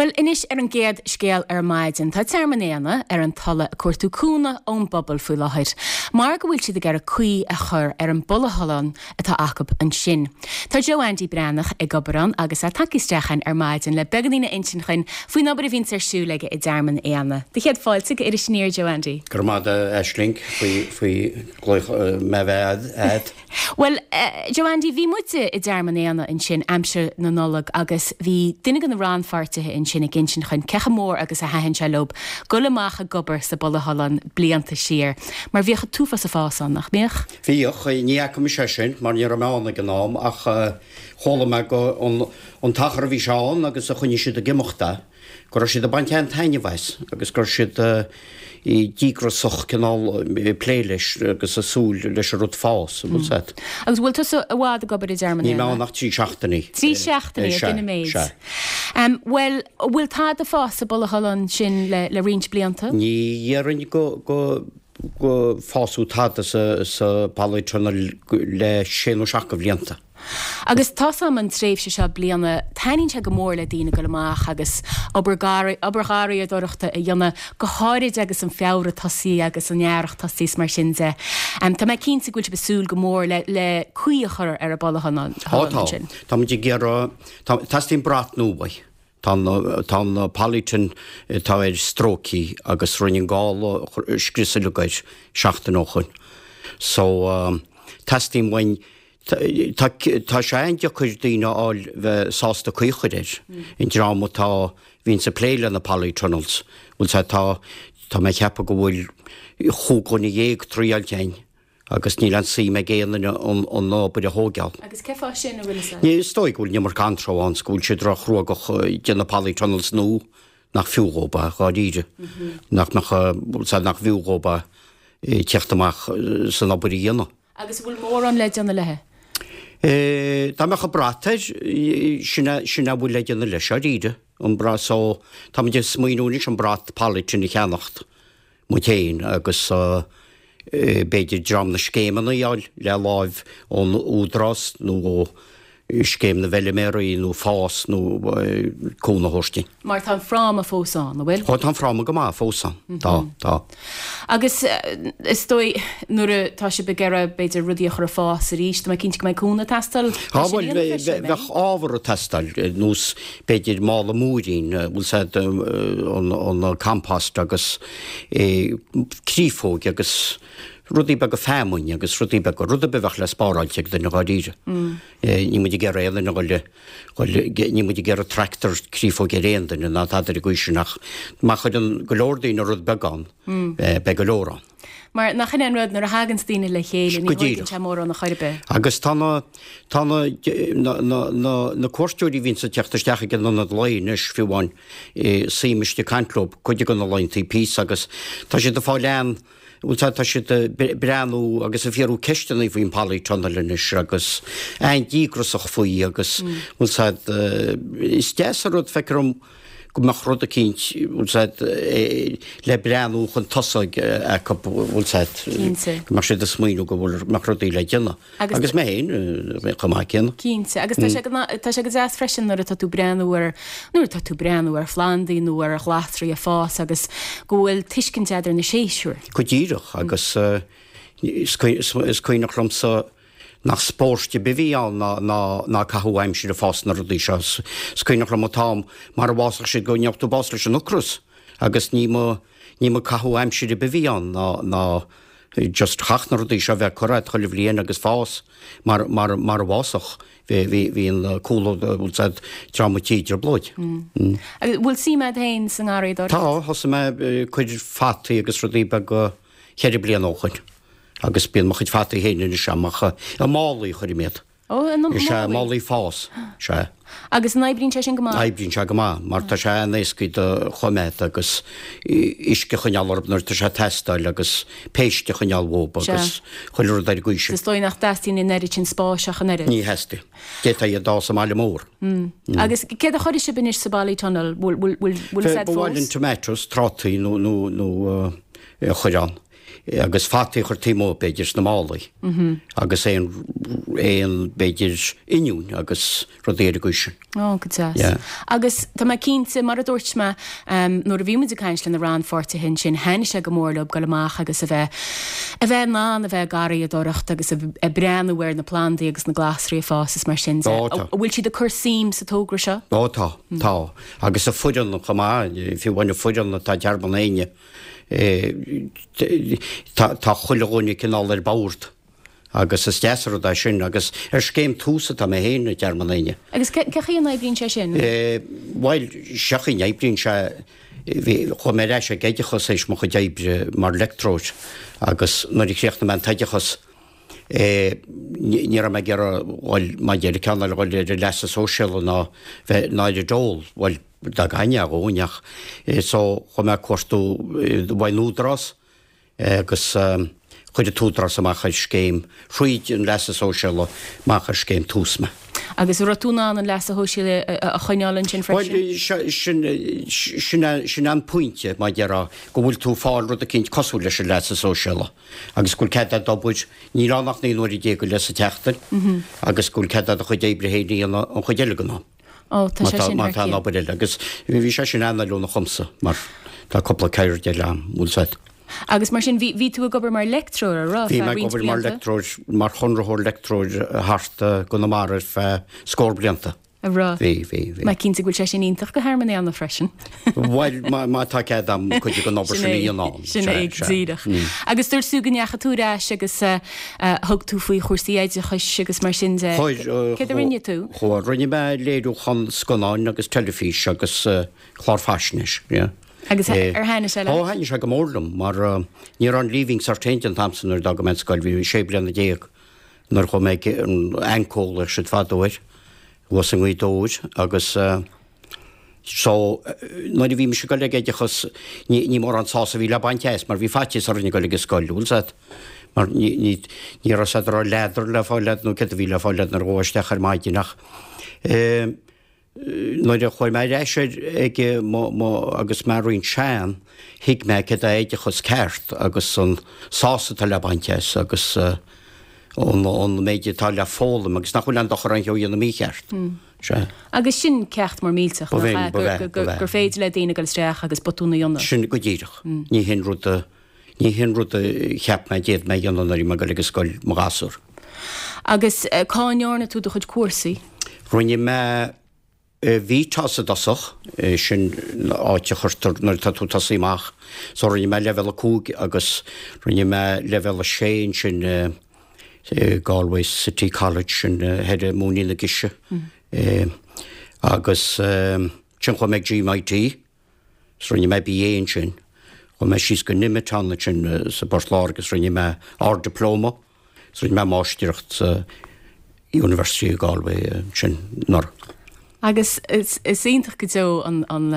Bhuel, anois ar an gcéad scéal ar maidin, tá Tearmann Éanna ar an Tulaigh ag cuartú cúnamh ón bpobal faoi láthair mar go bhfuil siad ag iarraidh caoi a chur ar an bpolythunnel atá acu ansin. Tá Joe Andy Breathnach ag obair ann agus é tagtha isteach chugainn ar maidin le beagáinín a insint dhuinn faoin obair a bhíonns ar siúl aige i dTearmann Éanna. Do chéad fáilte go Iris Aniar, Joe Andy. Go raibh maith agat, a Aisling, faoi glaoch mé bheith a'd. Bhuel, Joe Andy, bhí muide i dTearmann Éanna ansin aimsir na Nollag agus bhí duine de na rannpháirtithe ansin ag insint dhuinn cé chomh mór agus a thaitin sé leob goil amach ag obair sa bpolythunnel blianta siar, mar bhíodh an t-uafás ag fás ann, nach mbíodh? Bhíodh, ní fhaca mise é sin mar ní raibh mé ann ag an am ach chuala mé go an t-achar a bhí sé ann agus a choinnigh siad ag imeacht é. go raibh siad ag baint an-taitneamh as agus go raibh siad díograsach cineál ag plé leis agus ag súil leis an rud fás, an bhfuil 's a'd. Agus bhfuil tusa i bhfad ag obair i dTearmann Níl mé ann ach 3 seachtainí. 3 seachtainí, sin an méid. Sea. Bhuel, an bhfuil tada ag fás sa bpolythunnel sin le roinnt blianta? Ní dhéarfainn go, go, go fásadh tada sa, sa polytunnel le sé nó seacht de bhlianta. Agus tá's a'm an tréimhse seo bliana, taitníonn sé go mór le daoine goil amach agus obair obair gharraíodóireachta a dhéanamh, go háirid agus an Feabhra tosaithe agus an earrach tosaithe is mar sin de. Tá mé cinnte go bhfuil sibh ag súil go mór le le caoi a chur ar an bpolythunnel Tá, tá. ansin. Tá muid ag iarraidh, tá, teastaíonn brat nua uaidh. Tá an, tá an polytunnel atá air stróicthe agus rinne an gála scrios uilig air seachtain ó shoin. So, teastaíonn uainn, Tá, tá sé an-deacair daoine a fháil bheith sásta caoi a chur air. An dream atá, bhíonns ag plé le na polytunnels, bhfuil 's a'd, tá, tá mé ag ceapadh go bhfuil chúig dhuine dhéag triáilte a'inn agus níl aon suim ag aon duine an, an obair a thóigeáil. Agus cé fáth sin, an bhfuil 'fhios a'd? Ní, is dóigh go bhfuil an iomarca anró ann 's go bhfuil siad ró-chruógach déanamh polytunnels nua nach fiú dhóib é, dháiríre. Nach mbeadh, bhfuil 's a'd, nach bhfiú dhóib é teacht amach san obair a dhéanamh. Agus an bhfuil mórán le déanamh léi? Dá mbeadh an brat air, sin é, sin é a bhfuil le déanamh leis, dháiríre, an brat so, táimid ag smaoineamh anois an brat polytunnel a cheannacht muid féin agus b'fhéidir dream na scéimeanna a fháil le láimh ón Údarás nó ó Scéim na bhFeiliméaraí nó FÁS nó cúnamh a thabhairt dúinn. Mar tá an fráma fós ann, an bhfuil? Ó, tá an fráma go maith fós ann. Tá, tá. Agus is dóigh nuair atá sibh ag iarraidh b'fhéidir rudaí a chur ag fás arís, tá mé cinnte go mbeidh cúnamh ag teastáil Tá, bhuel, bheadh ábhar ag teastáil, nós b'fhéidir mála múirín, bhfuil 's a'd, an compost agus créafóig agus rudaí beaga feamainn agus rudaí beaga, rud ar bith a bheadh le spáráilt ag duine dháiríre. Níl muid ag iarraidh aon duine a dhul, níl muid ag iarraidh tractor créafóige ar aon duine ná tada ar an gcaoi sin ach má chuireann go leor daoine rud beag ann, beidh go leor ann. Mar nach in é an rud, nuair a thaganns daoine le chéile, ní thóigeann sé mórán a chor ar bith. Agus tá na, tá na, na, na, na cuairteoirí a bhíonns ag teacht isteach ag an ionad lae anois, fiú amháin, suím istigh ag caint leo cuid de na laethanta píosa agus tá siad ag fáil an, Bhuel, tá, tá siad ag breathnú agus ag fiafraí ceisteanna faoin polytunnel anois agus an-díograsach faoi agus, bhfuil 's a'd, is deas an rud, feictear dom go mbeadh rud eicínt, bhfuil 's a'd, le breathnú chun tosaigh acu, bhfuil 's a'd, go mbeadh siad ag smaoineamh go bhfuil, mbeadh rudaí le déanamh. Agus mé féin chomh maith céanna. Cinnte. Agus tá sé go, tá sé go deas freisin nuair atá tú breathnú ar, nuair atá tú breathnú ar phlandaí nó ar ghlasraí ag fás agus go bhfuil tuiscint a'd ar na séasúir. Go díreach. Agus is cuimhneach liomsa nach spórt ar bith a bhí ann ná, ná, ná caitheamh aimsire ag fás na rudaí seo. Is cuimhneach liom an t-am mar a bhfásfadh siad go ngeobhadh tú bás leis an ocras agus ní mba, ní mba caitheamh aimsire ar bith a bhí ann ná, ná, just chaithfeadh na rudaí seo bheith curtha agat chuile bhliain agus fás mar, mar, mar a bhfásfadh. Bhí, bhí, bhí an cúl, bhfuil 's a'd, dream an tí i dtrioblóid. Agus bhfuil suim a'd féin sa ngarraíodóireacht? Tá, thosaigh mé ag cur fataí agus rudaí beaga cheithre bliana ó shoin agus bíonn mo chuid fataí féin anois a'm ach i málaí a chuirim iad. Ó, i málaí? Is ea, málaí fás, sea. Agus an oibríonn sé sin go maith? Oibríonn sé go maith, mar tá sé an-éascaí do choimeád agus uisce a choinneáil orthu nuair atá sé ag teastáil agus péist a choinneáil uathu agus chuile rud ar an gcaoi sin. Is dóigh nach dteastaíonn an oiread sin spáis ach an oiread. Ní theastaíonn. D'fhéadfá iad a fhás i mbaile mór. Agus céard a chuirfidh sibh anois sa bpolytunnel? Bhfuil fhios a'd fós? Ba mhaith linn tomatoes, trátaí nó a chur ann. Agus fataí a chur taobh amuigh, b'fhéidir, sna málaí. Agus aon, aon, b'fhéidir, oinniúin agus rudaí ar an gcaoi sin. Ó, go deas. Yeah. Agus tá mé cinnte, mar a dúirt mé, nuair a bhí muid ag caint le na rannpháirtithe ansin, thaitnigh sé go mór leo dul amach agus a bheith, a bheith in ann a bheith ag garraíodóireacht agus ag breathnú ar na plandaí agus na glasraí ag fás is mar sin de. Ó, tá. An bhfuil siad ag cur suim sa togra seo? Ó, tá, tá. Agus an foireann chomh maith, fiú amháin an foireann atá i dTearmann Éinne, Tá chuile dhuine cineál ar bord agus is deas an rud é sin agus ar scéim Tús atá mé féin i dTearmann Éinne. Agus cén chaoi a n-oibríonn sé sin? Bhuel, sé an chaoi a n-oibríonn sé, chuaigh mé ar ais ag oideachas théis mo chuid oibre mar leictreoir agus nuair a chríochnaigh mé an t-oideachas, ní raibh mé ag iarraidh dhul, mar a deir ceann eile, dhul ar an leasa sóisialaigh ná bheith ná ar an dól, bhuel, dá gcaithfinn é dhóinn ach so chuaigh mé ag cuartú uaidh an Údarás agus chuir an tÚdarás amach ar scéim thríd an leasa sóisialaigh amach ar scéim Tús mé. Agus an raibh tú in ann an leasa shóisialaigh a choinneáil ansin freisin? Bhuel, sin, sin, sin an pointe, mar a déarfá, go bhfuil tú ag fáil rud eicínt cosúil leis an leasa sóisialaigh agus go bhfuil cead agat obair, níl ann ach 19 uaire go leith sa tseachtain agus go bhfuil cead agat do chuid oibre féin a dhéanamh an chuid eile den am. Ó, tá sé sin Má thar tá an cionn. obair eile. Agus bhí sé sin an-fheiliúnach dhomsa mar tá cúpla ceird eile a'm, bhfuil 's a'd. Agus mar sin, bhí, bhí tú ag obair mar leictreoir, a raibh, Bhí feadh mé ag roinnt obair mar blianta? leictreoir, mar chonraitheoir leictreoir thart i gConamara ar feadh scór blianta. A raibh? Bhí, bhí, bhí. Mé cinnte go bhfuil sé sin iontach do Thearmann Éanna freisin. Bhuel, má, má tá cead a'm cuid den obair Sin sin a é, dhéanamh ann. sin Sea, é, sea. díreach. Agus dúirt tú go ndeachaigh tú ar ais agus eh, Thug tú faoi chúrsaí oideachais agus mar sin de. Céard a rinne tú? Chuaigh, rinne mé léiriúchán scannáin agus teilifís agus clár faisnéis, yeah. Agus ar thaitnigh sé leat? Ó, thaitnigh sé go mór liom mar ní raibh an Leaving Cert féin an t-am san nuair a d'fhág mé an scoil, bhí mé sé bliana déag nuair a chuaigh mé ag an AnCO a ghlaodh siad fadó air, thuas i nGaoth Dobhair agus. So, nuair a bhí mise ag dul ag oideachas, ní, ní mórán sásamh a bhí le baint as, mar bhí faitíos orainn ag dul ag an scoil, bhfuil 's a'd? Mar ní, ní, ní raibh 's a'd an raibh leadar le fáil a'd nó céard a bhí le fáil a'd nuair a ghabhfá isteach ar maidin ach eh, nuair a chuaigh mé ar ais ar, ag mo, mo, agus mé roinnt sean, thuig mé céard é oideachas ceart agus an sásamh atá le baint as agus eh, an, an méid atá le foghlaim agus nach bhfuil aon dochar aon cheo a dhéanamh mícheart. Sea. Agus sin ceacht mór millteach, Ba nach bhinn, ea, ba bhea, ba bhea. gur féidir le daoine dul isteach agus botún a dhéanamh. Sin go díreach. Ní hin rud a, ní hin rud a cheap mé d'fhéad mé a dhéanamh nuair a bhí mé ag dul ag an scoil, mo ghasúr. Agus cá ndearna tú do chuid cúrsaí? Rinne mé VTOS i dtosach, sin áit a chuirtear nuair atá tú ag tosaí amach. So rinne mé leibhéal 5 agus rinne mé leibhéal 6 ansin Galway City College sin thoir i Móinín na Gise agus ansin chuaigh mé ag GMIT is rinne mé BA ansin. Chuaigh mé síos go Nemeton ansin sa bPort Láirge agus rinne mé Ard-Dioplóma is rinne mé Máistreacht sa University of Galway ansin anuraidh. Agus is iontach go deo an, an,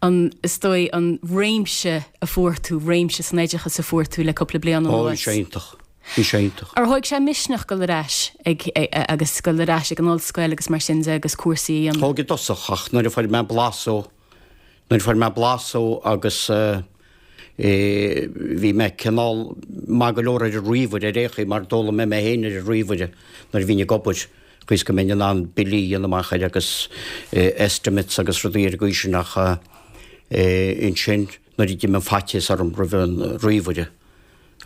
an, is dóigh, an réimse a fuair tú, réimse san oideachas a fuair tú le cúpla bliain anuas. Ó, bhí sé iontach. Bhí sé iontach. Ar thóig sé misneach dul ar ais ag, agus dul ar ais ag an ollscoil agus mar sin de agus cúrsaí a dhéanamh? Thóg i dtosach ach nuair a fuair mé blas dó, nuair a fuair mé blas dó agus eh, Bhí mé cineál maith go leor ar an ríomhaire ar aon chaoi mar d'fhoghlaim mé mé féin ar an ríomhaire nuair a bhínn ag obair, chaoi is go mbeinn in ann billí a dhéanamh amach air agus estimates agus rudaí ar an gcaoi sin ach ansin nuair a d'imigh an faitíos orm roimh an ríomhaire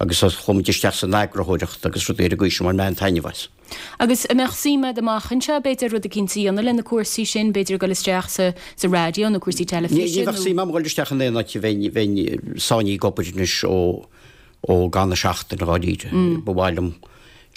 agus chuaigh muid isteach san eagarthóireacht agus rudaí ar an gcaoi sin bhain mé an-taitneamh as. Agus an mbeadh suim agat amach anseo, b'fhéidir, rud eicínt a dhéanamh le na cúrsaí sin, b'fhéidir ag dul isteach sa sa raidió nó cúrsaí teilifíse Ní bheadh nó. suim agam dhul isteach in aon áit a bheinn bheinn sáinnithe ag obair anois ó ó gan an seachtain dháiríre. Ba mhaith liom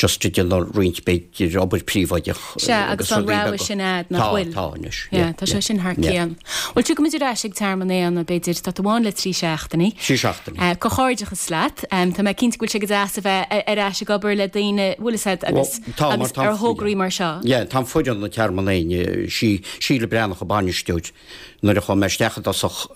just ag déanamh roinnt b'fhéidir obair príobháideach Sea, agus agus tá an rudaí rogha beaga. sin a'd, nach Tá, bhfuil? tá anois, Yeah, yeah, tá sé yeah, sin thar yeah. cionn. Bhuel, tiocfaimid ar ais ag Tearmann Éanna, b'fhéidir, tá tú ann le 3 seachtainí. 3 seachtainí. Comhghairdeachas leat. Tá mé cinnte go bhfuil sé go deas a bheith ar ais ag obair le daoine, bhfuil fhios a'd, agus Tá, mar agus tá ar thograí mar seo. Yeah, tá an foireann ag Tearmann Éinne, sí Síle Breathnach an bainisteoir. Nuair a chuaigh mé isteach i dtosach,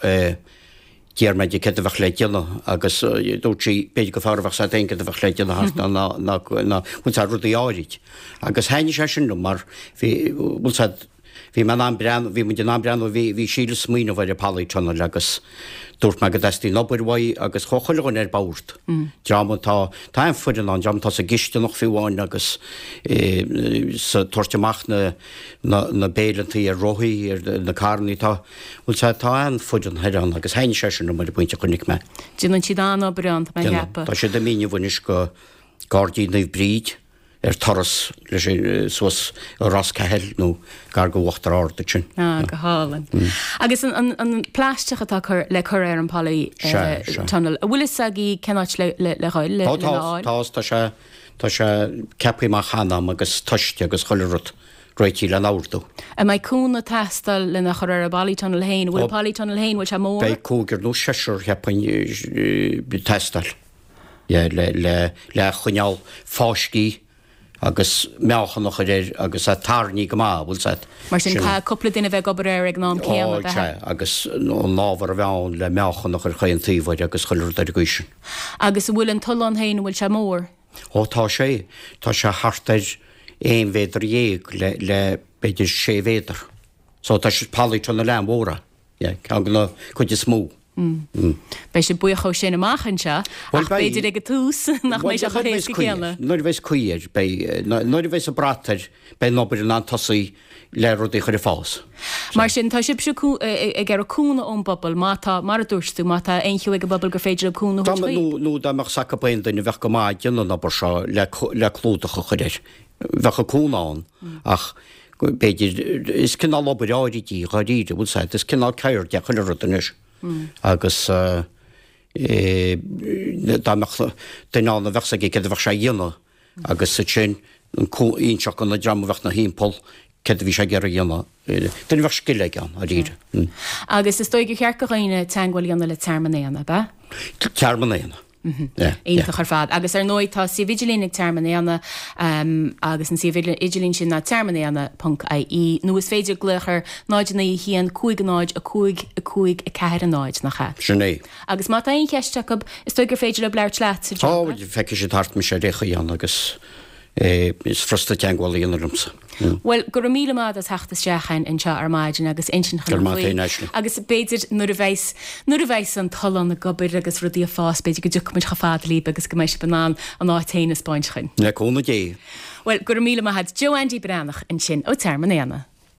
d'iarr mé di céard a bheadh le déanamh agus dúirt sí b'fhéidir gur fearr a bheadh 's a'd féin céard a bheadh le déanamh thart ná ná ná bhfuil 's a'd rudaí áirid. Agus thaitnigh sé sin liom mar bhí, bhfuil 's a'd, Bhí mé in ann breathnú, bhí muid in ann breathnú, bhí, bhí Síle ag smaoineamh ar an polytunnel agus dúirt mé go dteastaíonn obair uaidh agus chuaigh chuile dhuine ar bord. Dream atá, tá an-fhoireann ann, dream atá sa gcisteanach fiú amháin agus sa tabhairt amach na, na, na béileantaí ar rothaí, ar na carrannaí, tá, bhuel tá, tá an-fhoireann thoir ann agus thaitnigh sé sin liom ar an bpointe a chonaic mé. Déanann siad an-obair ann, tá mé a cheapadh. Tá siad ag míniú anois go Gairdín Naomh Bríd. ar turas leis suas i Ros Cathail nó gar go Uachtar Ard ansin. Ah, go hálainn. Agus an plaisteach atá cur, le cur ar an poly tunnel, an bhfuil fhios agaibh cén áit le le dhul, le lena fháil? Tá, tá, tá sé, tá sé ceaptha amach cheana agam agus tomhaiste agus chuile rud réitithe lena ordú. An mbeidh cúnamh ag teastáil lena chur ar an bpolytunnel féin? An bhfuil an polytunnel féin, bhfuil sé mór? Beidh cúigear nó seisear, cheapfainn, ag teastáil. le le choinneáil fáiscthe agus meáchan a chur air agus é tarraingthe go maith, bhfuil 's a'd. Mar sin, caithfidh cúpla duine a bheith ag obair air ag an am céanna, ab ea? Sea, agus an ábhar a bheith ann le meáchan a chur chaon taobh air agus chuile rud ar an gcaoi sin. Agus an bhfuil an tollán féin, an bhfuil sé mór? Ó tá sé, tá sé thart ar aon mhéadar dhéag le le b'fhéidir sé mhéadar. So tá sé polytunnel an-mhór é. Yeah, ceann de na cuid is mó. Beidh sibh buíoch ó sin amach anseo, ach b'fhéidir ag an tús nach mbeidh sé chomh héasca céanna. Nuair a bheas caoi air, beidh, nuair a bheas an brat air, beidh an obair in ann tosaí le rudaí a chur ag fás. Mar sin, tá sibhse ag iarraidh cúnamh ón bpobal, má tá, mar a dúirt tú, má tá aon cheo ag an bpobal gur féidir leo cúnamh a thabhairt chuig. Nó dá mbeadh 's acu aon duine a bheadh go maith ag déanamh an obair seo le clúdach a chur air, bheadh an cúnamh ann ach b'fhéidir, is cineál obair áirid í, dháiríre, bhfuil 's a'd, is cineál ceird é chuile rud anois agus dá mbeadh duine ann a bheadh 's aige céard a bheadh sé a dhéanamh agus ansin inseacht do na dream a bheadh 'na thimpeall céard a bhí sé ag iarraidh a dhéanamh, duine a bheadh scil aige ann, dháiríre. Agus is dóigh gur cheart do dhaoine teagmháil a dhéanamh le Tearmann Éanna, ab ea? Tearmann Éanna. Iontach ar fad. Agus ar ndóigh tá suíomh idirlín ag Tearmann Éanna agus an suíomh idirlín sin ná tearmannéanna ponc ie nó is féidir glaoch ar 0 9 1 5 0 5 5 4 0, nach ea? Sin é. Agus má tá aon cheist acu, is dóigh gur féidir leo labhairt leat, a Joe. Tá, feicfidh siad thart mise ar aon chaoi ann agus is furasta teagmháil a dhéanamh liomsa. Bhuel, go raibh míle maith agat as theacht isteach chugainn anseo ar maidin agus insint Go raibh maith agat féin, Aisling. Agus b'fhéidir nuair a bheas, nuair a bheas an tollán ag obair agus rudaí ag fás, b'fhéidir go dtiocfaidh muid chomh fada libh agus go mbeidh sibh in ann an áit féin a 'speáint chugainn. Le cúnamh Dé. Bhuel, go raibh míle maith agat. Joe Andy Breathnach ansin ó Tearmann Éanna.